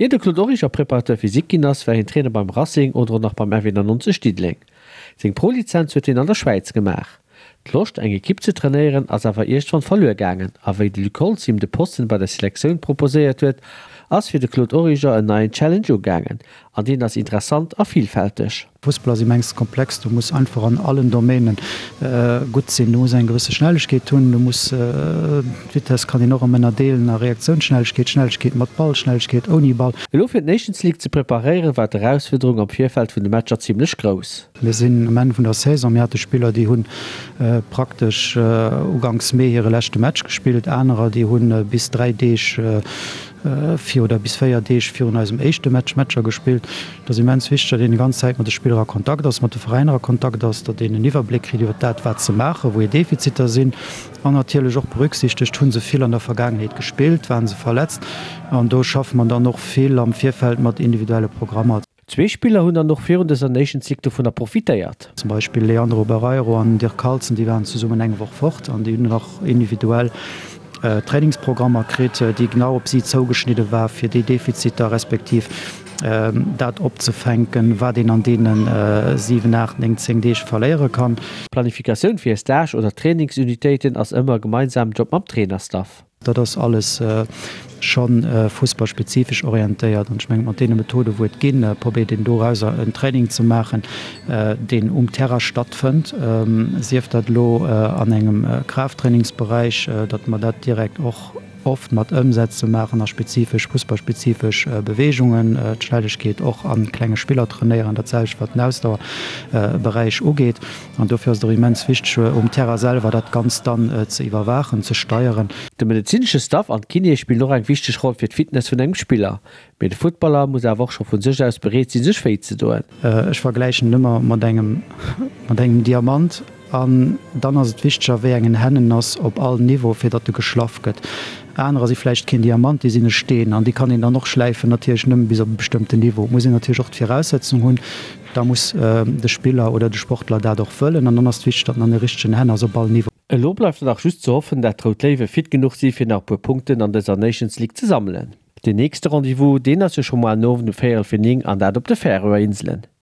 Ier de Claude Origer Préparateur physique ginn ass, war hien Trainer beim Racing oder och nach beim FE 99 Diddeleng. Seng Pro-Lizenz huet hien an der Schwäiz gemaach. D'Loscht, eng Ekipp ze trainéieren, ass awer iergendwann verluer gaangen a wéi de Luc Holtz him de Posten bei der Selektioun proposéiert huet, ass fir de Claude Origer en neien Challenge ugaangen. An deen ass interessant a villfälteg. Fussball ass immens komplex, du muss einfach an allen Domainen gutt sinn. Du muss eng gewësse Schnellegkeet hunn, du muss, d'Vitesse kann een och erëm ënnerdeelen a Reaktiounsschnellegkeet, Schnellegkeet mat Ball, Schnellegkeet ouni Ball. Elo fir d'Nations League ze preparéieren, war d'Erausfuerderung am Virfeld vun de Matcher zimmlech grouss. Mir sinn um Enn vun der Saison, mir hate Spiller, déi hu praktesch uganks Mee hire leschte Match gespillt, anerer, déi hu bis 3 Deeg vir oder bis 4 Deeg virun eisem éischte Match Matcher gespillt. Et ass immens wichteg, datt een déi ganz Zäit mat de Spiller a Kontakt ass, mat de Veräiner a Kontakt ass, datt een en Iwwerbléck kritt iwwer dat, wat se maachen, wou hir Defiziter sinn an natierlech och berücksichtegt, hu se vill an der Vergaangenheet gespillt, ware se verletzt. An do schaffe mer dann och vill am Virfeld mat individuelle Programmer. Zwee Spiller hunn dann och virun dëser Nations League dovunner profitéiert. Zum Beispill Leandro Barreiro an Dirk Carlson, déi waren zesummen eng Woch fort an déi hunn nach individuell Trainingsprogrammer kritt, déi genau op si zougeschnidde war, fir déi Defiziter respektiv dat opzefänken, wat een an deene 7, 8, 9, 10 Deeg verléiere kann. D'Planifikatioun fir e Stage oder Trainingsunitéiten ass ëmmer e gemeinsamen Job mam Trainerstaff. Dat ass alles scho fussballspezifesch orientéiert an ech mengen, mat deene Methoden, wou et ginn, probéiert een dorauser en Training ze maachen, deen um Terrain stattfënnt, sief dat elo an engem Kraafttrainingsberäich, datt mer dat direkt och oft mat Ëmsätze maachen a spezifesch fussballspezifesch Beweegungen, d'Schnellegkeet och a klenge Spiller trainéieren, dat selwecht wat den Ausdauerberäich ugeet. An dofir ass et och immens wichteg, um Terrain selwer dat Ganzt dann ze iwwerwaachen, ze steieren. De medezinesche Staff an d'Kinéë spillen och eng wichteg Roll fir d'Fitness vun engem Spiller. Mee de Futtballer muss awer och scho vu sech aus bereet sinn, sech wéi ze doen. Ech vergläichen et ëmmer mat engem, mat engem Diamant. An dann ass et wichteg, a wéi engen Hänn en ass, op all Niveau, fir datt e geschlaff gëtt. Anerer si vläicht keen Diamant, déi sinn e Steen an déi kann een dann och schläifen, natierlech nëmme bis op e bestëmmten Niveau. Et muss een natierlech och d'Viraussetzung hunn. Da muss de Spiller oder de Sportler dat och wëllen an dann ass et wichteg, datt en an de richtegen Hänn ass op all Niveau. Elo bleift nach just ze hoffen, dat d'Rout Léiwe fit genuch si fir nach e puer Punkten an dëser Nations League ze sammelen. Den nächste Rendez-vous, deen ass jo scho moar den Owend um véierel fir 9 an dat op de Färöer Inselen.